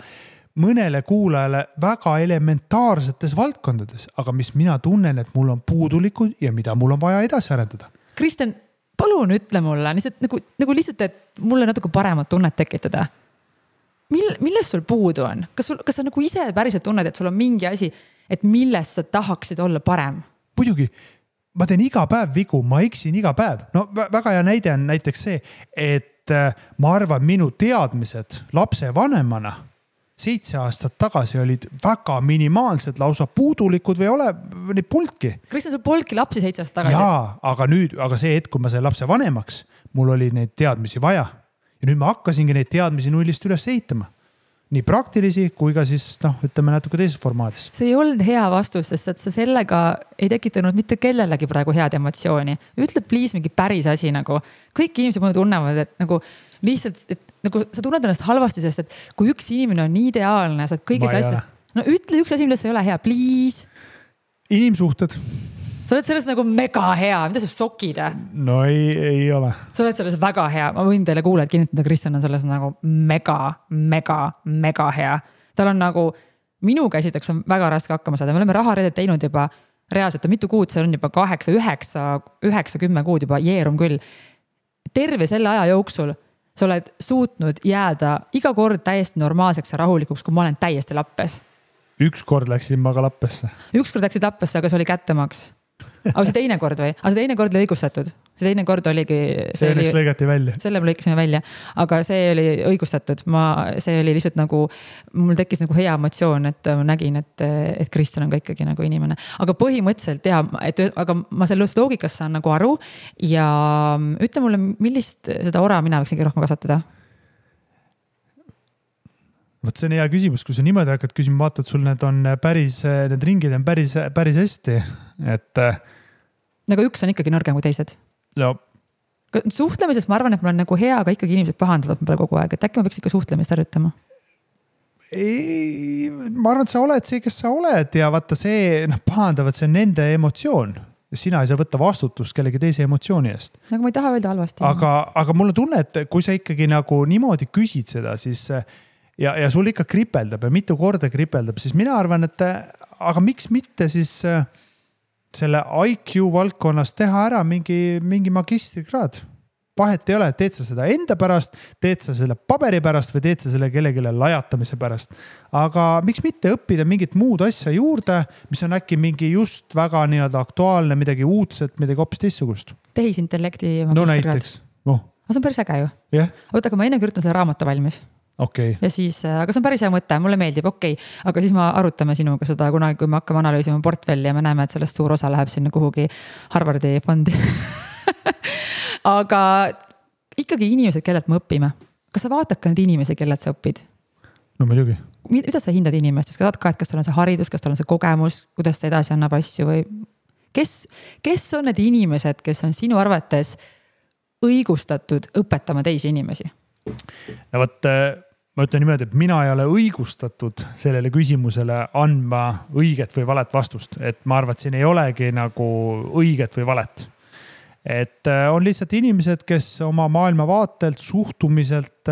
mõnele kuulajale väga elementaarsetes valdkondades, aga mis mina tunnen, et mul on puudulikud ja mida mul on vaja edasi arendada. Kristjan, palun ütle mulle nagu lihtsalt, et mulle natuke paremat tunnet tekitada. Millest sul puudu on? Kas sa nagu ise päriselt tunned, et sul on mingi asi, et millest sa tahaksid olla parem? Muidugi, ma teen iga päev vigu, ma eksin iga päev. No väga hea näide on näiteks see, et ma arvan, minu teadmised lapse vanemana 7 aastat tagasi olid väga minimaalsed, lausa puudulikud või ole neid polnudki. Kristjan, sul polnudki lapsi 7 aastat tagasi? Jaa, aga see hetk, kui ma sain lapse vanemaks, mul oli neid teadmisi vaja. Ja nüüd ma hakkasingi neid teadmisi nullist üles ehitama. Nii praktilisi kui ka siis, ütleme natuke teises formaadis. See ei olnud hea vastus, sest et sa sellega ei tekitanud mitte kellelegi praegu head emotsiooni. Ütle please mingi päris asi nagu. Kõik inimesed mulle tunnevad, et nagu lihtsalt, et nagu sa tunned ennast halvasti, sest et kui üks inimene on nii ideaalne, sa oled kõigis asjad. No ütle üks asi, millest sa ei ole hea, please. Inimsuhted. Sa oled selles nagu mega hea, mida sa sokid? No ei ole. Sa oled selles väga hea, ma võin teile kuulajad kinnitada, Kristjan on selles nagu mega hea. Tal on nagu, minu käsiteks on väga raske hakkama saada, me oleme raharedet teinud juba reaalselt, mitu kuud, see on juba 8, 9, 10 kuud juba jeerum küll. Terve selle aja jooksul sa oled suutnud jääda iga kord täiesti normaalseks ja rahulikuks, kui ma olen täiesti lappes. Üks kord läksin ma ka lappesse. Üks kord läksid lappesse, aga see oli kättemaks. Aga see teine kord või? Aga see teine kord oli õigustatud. See teine kord oligi... See lõigati välja. Selle me lõikasime välja. Aga see oli õigustatud. See oli lihtsalt nagu... Mul tekkis nagu hea emotsioon, et ma nägin, et Kristjan on ka ikkagi nagu inimene. Aga põhimõtteliselt aga ma sellest loogikast saan nagu aru. Ja ütle mulle, millist seda ora mina võiksingi rohkem kasvatada? Võt see on hea küsimus, kui sa niimoodi hakkad küsima, vaatad, sul need ringid on päris hästi, et... Aga üks on ikkagi nõrgem kui teised. No. Suhtlemisest ma arvan, et ma olen nagu hea, aga ikkagi inimesed pahandavad ma kogu aeg, et äkki ma peaks ikka suhtlemist harjutama? Ei, ma arvan, et sa oled see, kes sa oled ja vaata see, pahandavad, see on nende emotsioon. Sina ei saa võtta vastutust kellegi teise emotsiooni eest. Aga ma ei taha öelda halvasti. Aga mul on tunne, et kui sa ikkagi nagu niimoodi küsid seda, siis... Ja sul ikka kripeldab ja mitu korda kripeldab, siis mina arvan, et aga miks mitte siis selle IQ valdkonnas teha ära mingi magistrikraad. Vahet ei ole, teed sa seda enda pärast, teed sa selle paberi pärast või teed sa selle kellegile lajatamise pärast. Aga miks mitte õppida mingit muud asja juurde, mis on äkki mingi just väga nii-öelda aktuaalne, midagi uudset, midagi hoopis teistsugust. Tehisintellekti magistrikraad. No näiteks. See on päris äge ju. Yeah. Oota, aga ma enne kirjutan selle raamatu valmis. Okay. Ja siis, aga see on päris hea mõte, mulle meeldib, aga siis ma arutame sinuga seda kunagi, kui me hakkame analüüsima portfelli ja me näeme, et sellest suur osa läheb sinna kuhugi Harvardi fondi. Aga ikkagi inimesed, kellelt me õpime. Kas sa vaatad ka need inimesi, kellelt sa õpid? No muidugi. Mida sa hindad inimestest? Kas tal on see haridus, kas tal on see kogemus, kuidas ta edasi annab asju või kes on need inimesed, kes on sinu arvates õigustatud õpetama teisi inimesi? No võt, ma ütlen niimoodi, et mina ei ole õigustatud sellele küsimusele andma õiget või valet vastust. Et ma arvan, et siin ei olegi nagu õiget või valet. Et on lihtsalt inimesed, kes oma maailmavaatelt, suhtumiselt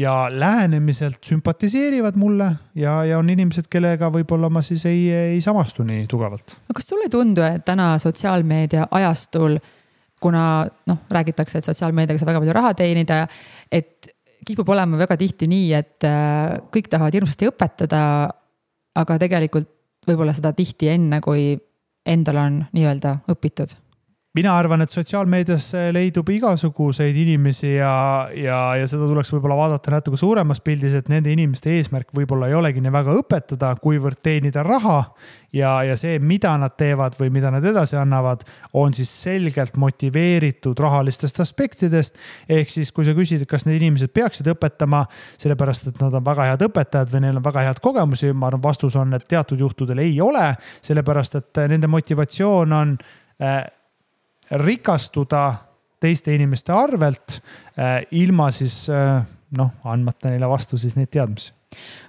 ja lähenemiselt sümpatiseerivad mulle ja on inimesed, kellega võib-olla ma siis ei samastu nii tugevalt. Kas sulle ei tundu, et täna sotsiaalmeedia ajastul, kuna räägitakse, et sotsiaalmeediaga saab väga palju raha teenida, et kipub olema väga tihti nii, et kõik tahavad hirmsasti õpetada, aga tegelikult võib-olla seda tihti enne, kui endal on nii-öelda õpitud? mina arvan, et sotsiaalmeedias leidub igasuguseid inimesi ja seda tuleks võib-olla vaadata natuke suuremas pildis, et nende inimeste eesmärk võib-olla ei olegi nii väga õpetada, kuivõrd teenida raha ja see, mida nad teevad või mida nad edasi annavad, on siis selgelt motiveeritud rahalistest aspektidest. Ehk siis, kui sa küsid, kas need inimesed peaksid õpetama, sellepärast, et nad on väga head õpetajad või neil on väga head kogemusi, ma arvan, vastus on, et teatud juhtudel ei ole, sellepärast, et nende motivatsioon on rikastuda teiste inimeste arvelt ilma siis andmata neile vastu siis neid teadmisi.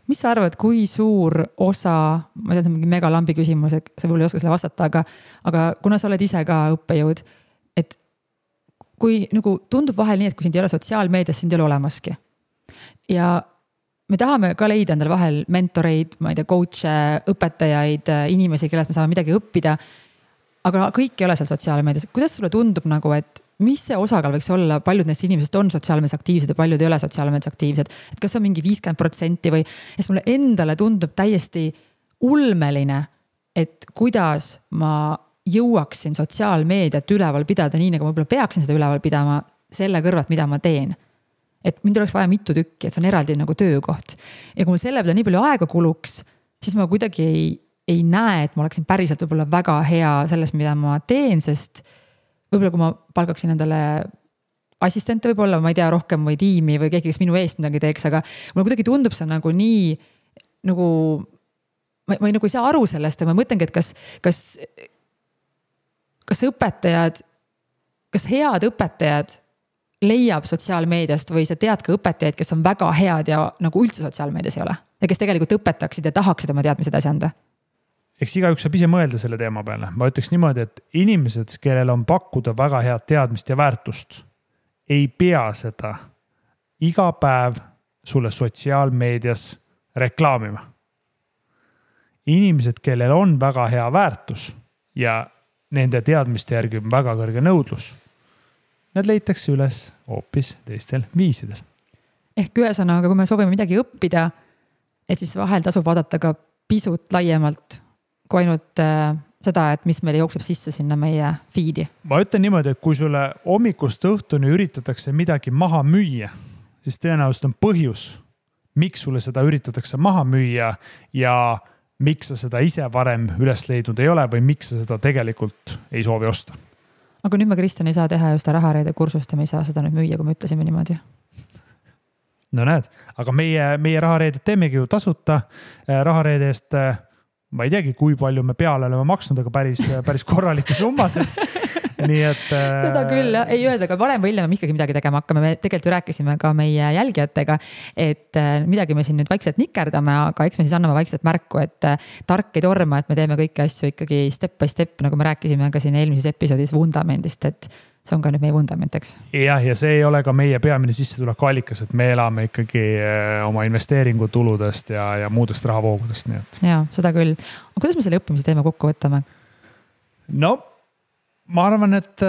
Mis sa arvad, kui suur osa, ma tean, see on mingi mega lambi küsimus, et sa võib-olla ei oska selle vastata, aga kuna sa oled ise ka õppejõud, et kui nagu tundub vahel nii, et kui sind ei ole sotsiaalmeedias, sind ei ole olemaski. Ja me tahame ka leida endale vahel mentoreid, ma ei tea, coach'e, õpetajaid, inimesi, kellelt me saame midagi õppida, aga kõik ei ole seal sotsiaalmeedias. Kuidas sulle tundub nagu, et mis see osakaal võiks olla, paljud neist inimesed on sotsiaalmeedias aktiivsed ja paljud ei ole sotsiaalmeedias aktiivsed, et kas on mingi 50% või, sest mulle endale tundub täiesti ulmeline, et kuidas ma jõuaksin sotsiaalmeediat üleval pidada nii, nagu ma võib-olla peaksin seda üleval pidama selle kõrvalt, mida ma teen. Et mind oleks vaja mitu tükki, et see on eraldi nagu töökoht. Ja kui mul selle peale nii palju aega kuluks, siis ma kuidagi ei näe, et ma oleksin päriselt võib-olla väga hea selles, mida ma teen, sest võib-olla kui ma palkaksin endale assistente võib-olla, ma ei tea, rohkem või tiimi või keegi, kes minu eest midagi teeks, aga mulle kuidagi tundub see nagu nii, nagu ma ei saa aru sellest ja ma mõtlengi, et kas õpetajad, kas head õpetajad leiab sotsiaalmeediast või sa tead ka õpetajaid, kes on väga head ja nagu üldse sotsiaalmeedias ei ole ja kes tegelikult õpetaksid ja tahaksid oma teadmised edasi anda? Eks igaüks saab ise mõelda selle teema peale. Ma ütleks niimoodi, et inimesed, kellel on pakkuda väga head teadmist ja väärtust, ei pea seda iga päev sulle sotsiaalmeedias reklaamima. Inimesed, kellel on väga hea väärtus ja nende teadmiste järgi on väga kõrge nõudlus, need leitakse üles hoopis teistel viisidel. Ehk ühesõnaga, kui me soovime midagi õppida, et siis vahel tasub vaadata ka pisut laiemalt kui ainult seda, et mis meile jookseb sisse sinna meie feed'i. Ma ütlen niimoodi, et kui sulle hommikust õhtuni üritatakse midagi maha müüa, siis tõenäoliselt on põhjus, miks sulle seda üritatakse maha müüa ja miks sa seda ise varem üles leidnud ei ole või miks sa seda tegelikult ei soovi osta. Aga nüüd me, Kristjan, ei saa teha just rahareede kursust ja me ei saa seda nüüd müüa, kui me ütlesime niimoodi. No näed, aga meie rahareedet teemegi ju tasuta rahareede eest. Ma ei teagi, kui palju me peale oleme maksnud, aga päris korralikke summasid. Nii et seda küll, jah. Ei ühes, aga varem või hiljem me ikkagi midagi tegema hakkame. Me tegelikult ju rääkisime ka meie jälgijatega, et midagi me siin nüüd vaikselt nikerdame, aga eks me siis anname vaikselt märku, et tark ei torma, et me teeme kõiki asju ikkagi step by step, nagu me rääkisime ka siin eelmises episoodis vundamendist, et see on ka nüüd meie vundament, eks? Jah, ja see ei ole ka meie peamine sissetuleku allikas, et me elame ikkagi oma investeeringutuludest ja muudest rahavoogudest. Nii et. Ja, seda küll. Aga kuidas me selle õppimise teema kokku võtame? No, ma arvan, et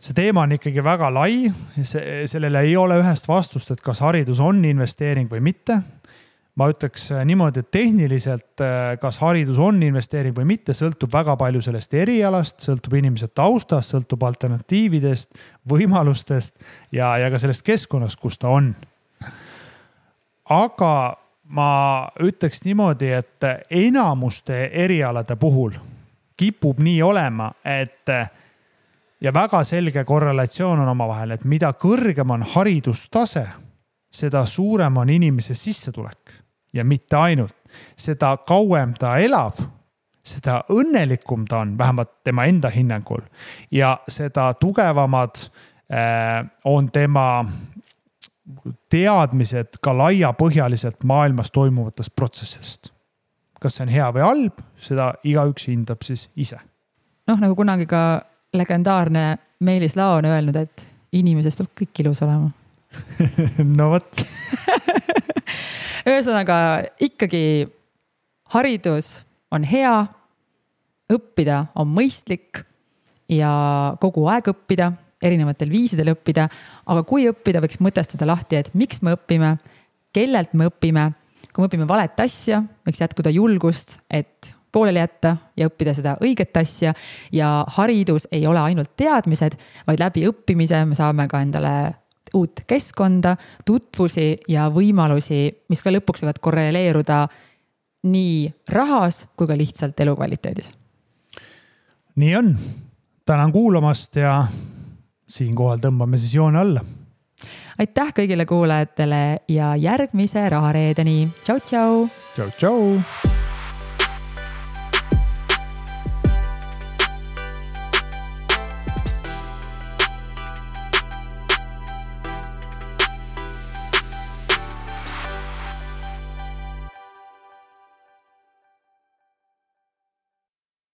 see teema on ikkagi väga lai. Sellele ei ole ühest vastust, et kas haridus on investeering või mitte. Ma ütleks niimoodi, et tehniliselt, kas haridus on investeering või mitte, sõltub väga palju sellest erialast, sõltub inimese taustast, sõltub alternatiividest, võimalustest ja ka sellest keskkonnast, kus ta on. Aga ma ütleks niimoodi, et enamuste erialade puhul kipub nii olema, et ja väga selge korrelatsioon on omavahel, et mida kõrgem on haridustase, seda suurem on inimese sissetulek. Ja mitte ainult, seda kauem ta elab, seda õnnelikum ta on, vähemalt tema enda hinnangul. Ja seda tugevamad on tema teadmised ka laiapõhjaliselt maailmas toimuvatest protsessist. Kas see on hea või halb, seda igaüks hindab siis ise. Nagu kunagi ka legendaarne Meelis Lao on öelnud, et inimesest peab kõik ilus olema. No võt. Ühesõnaga ikkagi haridus on hea, õppida on mõistlik ja kogu aeg õppida, erinevatel viisidel õppida, aga kui õppida, võiks mõtestada lahti, et miks me õpime, kellelt me õpime, kui me õpime valet asja, võiks jätkuda julgust, et pooleli jätta ja õppida seda õiget asja. Ja haridus ei ole ainult teadmised, vaid läbi õppimise me saame ka endale uut keskkonda, tutvusi ja võimalusi, mis ka lõpuks võivad korreleeruda nii rahas kui ka lihtsalt elukvaliteedis. Nii on. Tänan kuulamast ja siinkohal tõmbame siis joone alla. Aitäh kõigile kuulajatele ja järgmise rahareedeni. Tšau, tšau! Tšau, tšau!